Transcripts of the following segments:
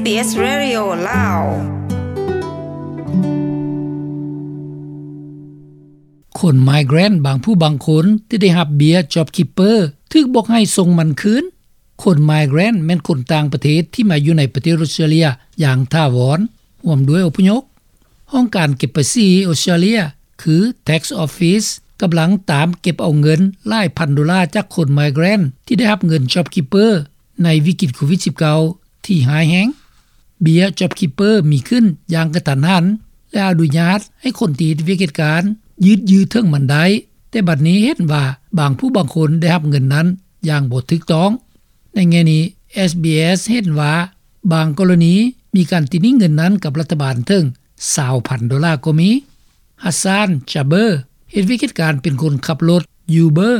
Radio ລາວ. ຄົນ migrant ບາງຜູ້ບາງຄົນທີ່ໄດ້ຮັບເບ້ຍ JobKeeper ຖືກບອກໃຫ້ສົ່ງມັນຄືນ. ຄົນ migrant ແມ່ນຄົນຕ່າງປະເທດທີ່ມາຢູ່ໃນປະເທດອົດສະຕຣາເລຍຢ່າງຖາວອນ, ຮ່ວມດ້ວຍອົບພະຍົບ. ຫ້ອງການເກັບພາສີອົດສະຕຣາເລຍ ຄື Tax Office ກຳລັງຕາມເກັບເອົາເງິນຫຼາຍພັນໂດລາຈາກຄົນ migrant ທີ່ໄດ້ຮັບເງິນ JobKeeper ໃນວິກິດໂຄວິດສິບເກົ້າ ທີ່ຮ້າຍແຮງ. ເບ້ຍ JobKeeper ມີຂຶ້ນຢ່າງກະທັນຫັນ ແລະ ອະນຸຍາດໃຫ້ຄົນທີ່ເຮັດວຽກເຮັດການຢືດເຖິງມັນໄດ້, ແຕ່ບັດນີ້ເຫັນວ່າບາງຜູ້ບາງຄົນໄດ້ຮັບເງິນນັ້ນຢ່າງບໍ່ຖືກຕ້ອງ. ໃນແງ່ນີ້ ເອສບີເອສ ເຫັນວ່າບາງກໍລະນີມີການຕິໜິ້ງເງິນນັ້ນກັບລັດຖະບານເຖິງຊາວພັນໂດລາກໍມີ. Hassan Jaber ເຮັດວຽກເຮັດການເປັນຄົນຂັບລົດ Uber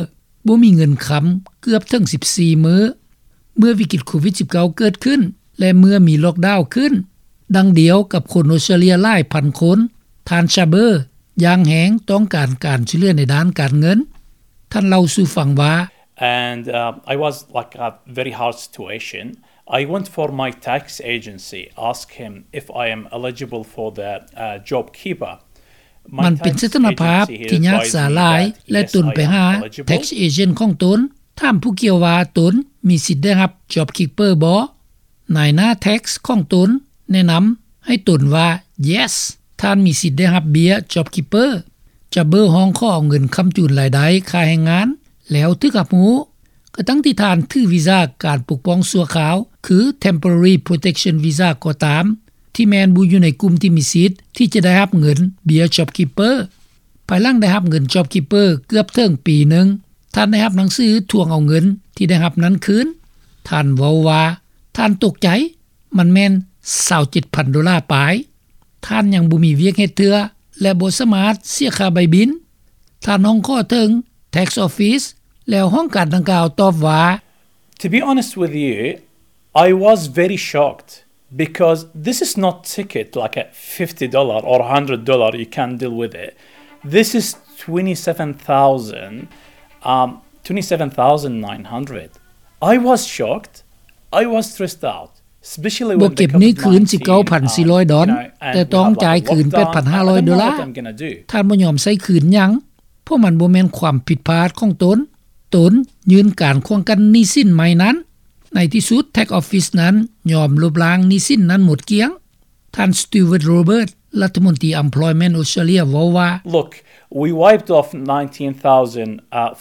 ບໍ່ມີເງິນຄຳເກືອບເຖິງສິບສີ່ມື້ ເມື່ອວິກິດໂຄວິດສິບເກົ້າເກີດຂຶ້ນ ແລະ ເມື່ອມີລ໊ອກດາວຂຶ້ນ. ດັ່ງດຽວກັບຄົນອົດສະຕຣາເລຍຫຼາຍພັນຄົນ, ທ່ານ Jaber ຢ່າງແຮງຕ້ອງການການຊ່ວຍເຫຼືອໃນດ້ານການເງິນ. ທ່ານເລົ່າສູ່ຟັງວ່າ And, uh, I was, like, a very hard situation. I went for my tax agency, ask him if I am eligible for the, uh, JobKeeper. ມັນເປັນສະຖານະພາບທີ່ຍາກສາຫຼາຍ ແລະ ຕົນໄປຫາ tax agent ຂອງຕົນ, ຖາມຜູ້ກ່ຽວວ່າຕົນມີສິດໄດ້ຮັບ JobKeeper ບໍ່? ນາຍໜ້າ tax ຂອງຕົນແນະນຳໃຫ້ຕົນວ່າ Yes, ທ່ານມີສິດໄດ້ຮັບເບ້ຍ JobKeeper. Jaber ຮ້ອງຂໍເອົາເງິນຄ້ຳຈູນລາຍໄດ້ຄ່າແຮງງານ ແລ້ວຖືກຮັບຮູ້, ກະທັ່ງທີ່ທ່ານຖືວີຊາການປົກປ້ອງຊົ່ວຄາວ ຄື Temporary Protection Visa ກໍຕາມ, ທີ່ແມ່ນບໍ່ຢູ່ໃນກຸ່ມທີ່ມີສິດທີ່ຈະໄດ້ຮັບເງິນເບ້ຍ JobKeeper. ພາຍຫຼັງໄດ້ຮັບເງິນ JobKeeper ເກືອບເຖິງປີໜຶ່ງ, ທ່ານໄດ້ຮັບໜັງສືທວງເອົາເງິນທີ່ໄດ້ຮັບນັ້ນຄືນ. ທ່ານເວົ້າວ່າ ທ່ານຕົກໃຈ, ມັນແມ່ນຊາວເຈັດພັນໂດລາປາຍ. ທ່ານຍັງບໍ່ມີວຽກເຮັດເທື່ອ ແລະ ບໍ່ສາມາດເສຍຄ່າໃບບິນ. ທ່ານຮ້ອງຂໍເຖິງ Tax Office ແລ້ວຫ້ອງການດັ່ງກ່າວຕອບວ່າ To be honest with you, I was very shocked because this is not ticket like a fifty dollar or a hundred dollar, you can deal with it. This is twenty-seven thousand, um, twenty-seven thousand nine hundred. I was shocked. I was stressed out. ບໍ່ເກັບໜີ້ຄືນສິບເກົ້າພັນສີ່ຮ້ອຍດອນ, ແຕ່ຕ້ອງຈ່າຍຄືນແປດພັນຫ້າຮ້ອຍໂດລາ. ທ່ານບໍ່ຍອມໃຊ້ຄືນຫຍັງ, ເພາະມັນບໍ່ແມ່ນຄວາມຜິດພາດຂອງຕົນ. ຕົນຍື່ນການຂວາງກັ້ນໜີ້ສິນໃໝ່ນັ້ນ. ໃນທີ່ສຸດ Tax Office ນັ້ນຍອມລົບລ້າງໜີ້ສິນນັ້ນໝົດກ້ຽງ. ທ່ານ Stuart Roberts ລັດຖະມົນຕີ Employment ອົດສະຕຣາເລຍ ເວົ້າວ່າ Look, we wiped off nineteen thousand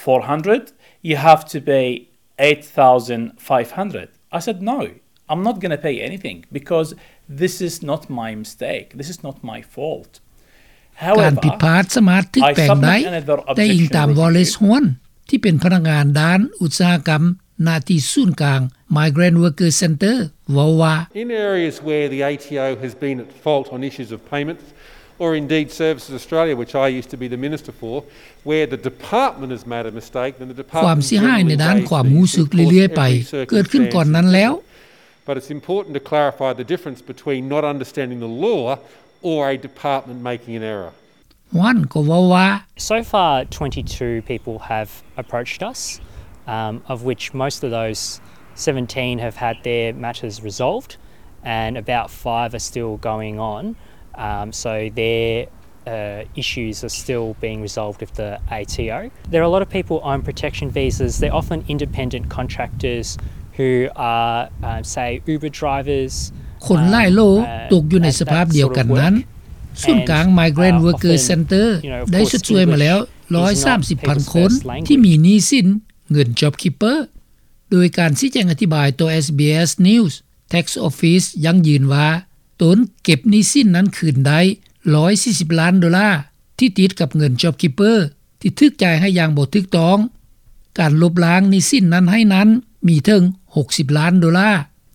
four hundred. You have to pay eight thousand five hundred. I said, No, I'm not gonna pay anything because this is not my mistake. This is not my fault. ການຜິດພາດສາມາດຖືກແປງໄດ້, ແຕ່ອີງຕາມ Wallace Huan ທີ່ເປັນພະນັກງານດ້ານອຸດສາຫະກຳ ນະທີ່ສູນກາງ Migrant Worker Centre ເວົ້າວ່າ In areas where the A T O has been at fault on issues of payments, or indeed Services Australia, which I used to be the minister for, where the department has made a mistake, then the department ຄວາມເສຍຫາຍໃນດ້ານຄວາມຮູ້ສຶກເລື້ອຍໆໄປເກີດຂຶ້ນກ່ອນນັ້ນແລ້ວ. But it's important to clarify the difference between not understanding the law or a department making an error. Huan ກໍເວົ້າວ່າ So far, twenty-two people have approached us, um, of which most of those seventeen have had their matters resolved, and about five are still going on. Um, so their, uh, issues are still being resolved with the A T O. There are a lot of people on protection visas. They're often independent contractors who are, um, say, Uber drivers. ຄົນຫຼາຍໂຫຼຕົກຢູ່ໃນສະພາບດຽວກັນນັ້ນ. ສູນກາງ Migrant Worker Centre ໄດ້ຊົດຊ່ວຍມາແລ້ວຮ້ອຍສາມສິບພັນຄົນທີ່ມີໜີ້ສິນເງິນ JobKeeper. ໂດຍການຊີ້ແຈງອະທິບາຍຕໍ່ SBS News, Tax Office ຢັ້ງຢືນວ່າຕົນເກັບໜີ້ສິນນັ້ນຄືນໄດ້ຮ້ອຍສີ່ສິບລ້ານໂດລາ ທີ່ຕິດກັບເງິນ JobKeeper ທີ່ຖືກຈ່າຍໃຫ້ຢ່າງບໍ່ຖືກຕ້ອງ. ການລົບລ້າງໜີ້ສິນນັ້ນໃຫ້ນັ້ນມີເຖິງຫົກສິບລ້ານໂດລາ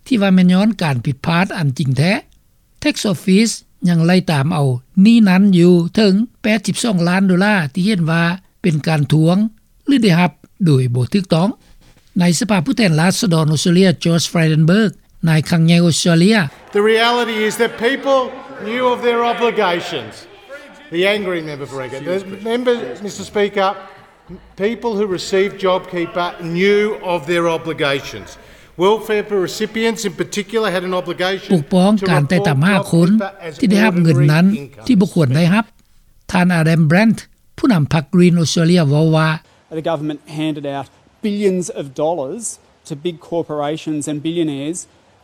ທີ່ວ່າແມ່ນຍ້ອນການຜິດພາດອັນຈິງແທ້. Tax Office ຍັງໄລ່ຕາມເອົາໜີ້ນັ້ນຢູ່ເຖິງແປດສິບສອງລ້ານໂດລາ ທີ່ເຫັນວ່າເປັນການທວງ ຫຼື ໄດ້ຮັບໂດຍບໍ່ຖືກຕ້ອງ. ໃນສະພາຜູ້ແທນລາຊະດອນອົດສະຕຣາເລຍ Josh Frydenberg, ນາຍຄັງໃຫຍ່ອົດສະຕຣາເລຍ The reality is that people knew of their obligations. The angry member for Edgecumbe. The member, Mister Speaker, people who received JobKeeper knew of their obligations. Welfare recipients in particular had an obligation ປົກປ້ອງການໄຕ່ຕາມຫາຄົນທີ່ໄດ້ຮັບເງິນນັ້ນທີ່ບໍ່ຄວນໄດ້ຮັບ. ທ່ານ Adam Bandt ຜູ້ນຳພັກ Green Australia ເວົ້າວ່າ The government handed out billions of dollars to big corporations and billionaires,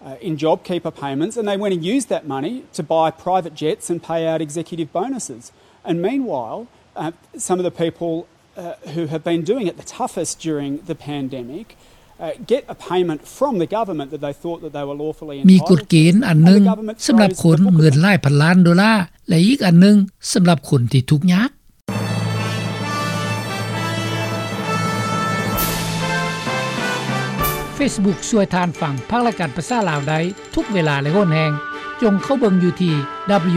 uh, in JobKeeper payments, and they went and used that money to buy private jets and pay out executive bonuses. And meanwhile, uh, some of the people, uh, who have been doing it the toughest during the pandemic, uh, get a payment from the government that they thought that they were lawfully entitled to. ມີກົດເກນອັນໜຶ່ງສຳລັບຄົນເງິນຫຼາຍພັນລ້ານໂດລາ ແລະ ອີກອັນໜຶ່ງສຳລັບຄົນທີ່ທຸກຍາກ. Facebook ຊ່ວຍທ່ານຟັງພາກລາຍການພາສາລາວໄດ້ທຸກເວລາ ແລະ ຫົນແຮງ. ຈົ່ງເຂົ້າເບິ່ງຢູ່ທີ່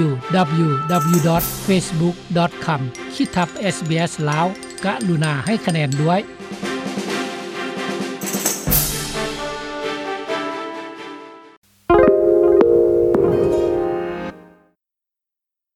www.facebook.com/sbslao. ກະລຸນາໃຫ້ຄະແນນດ້ວຍ.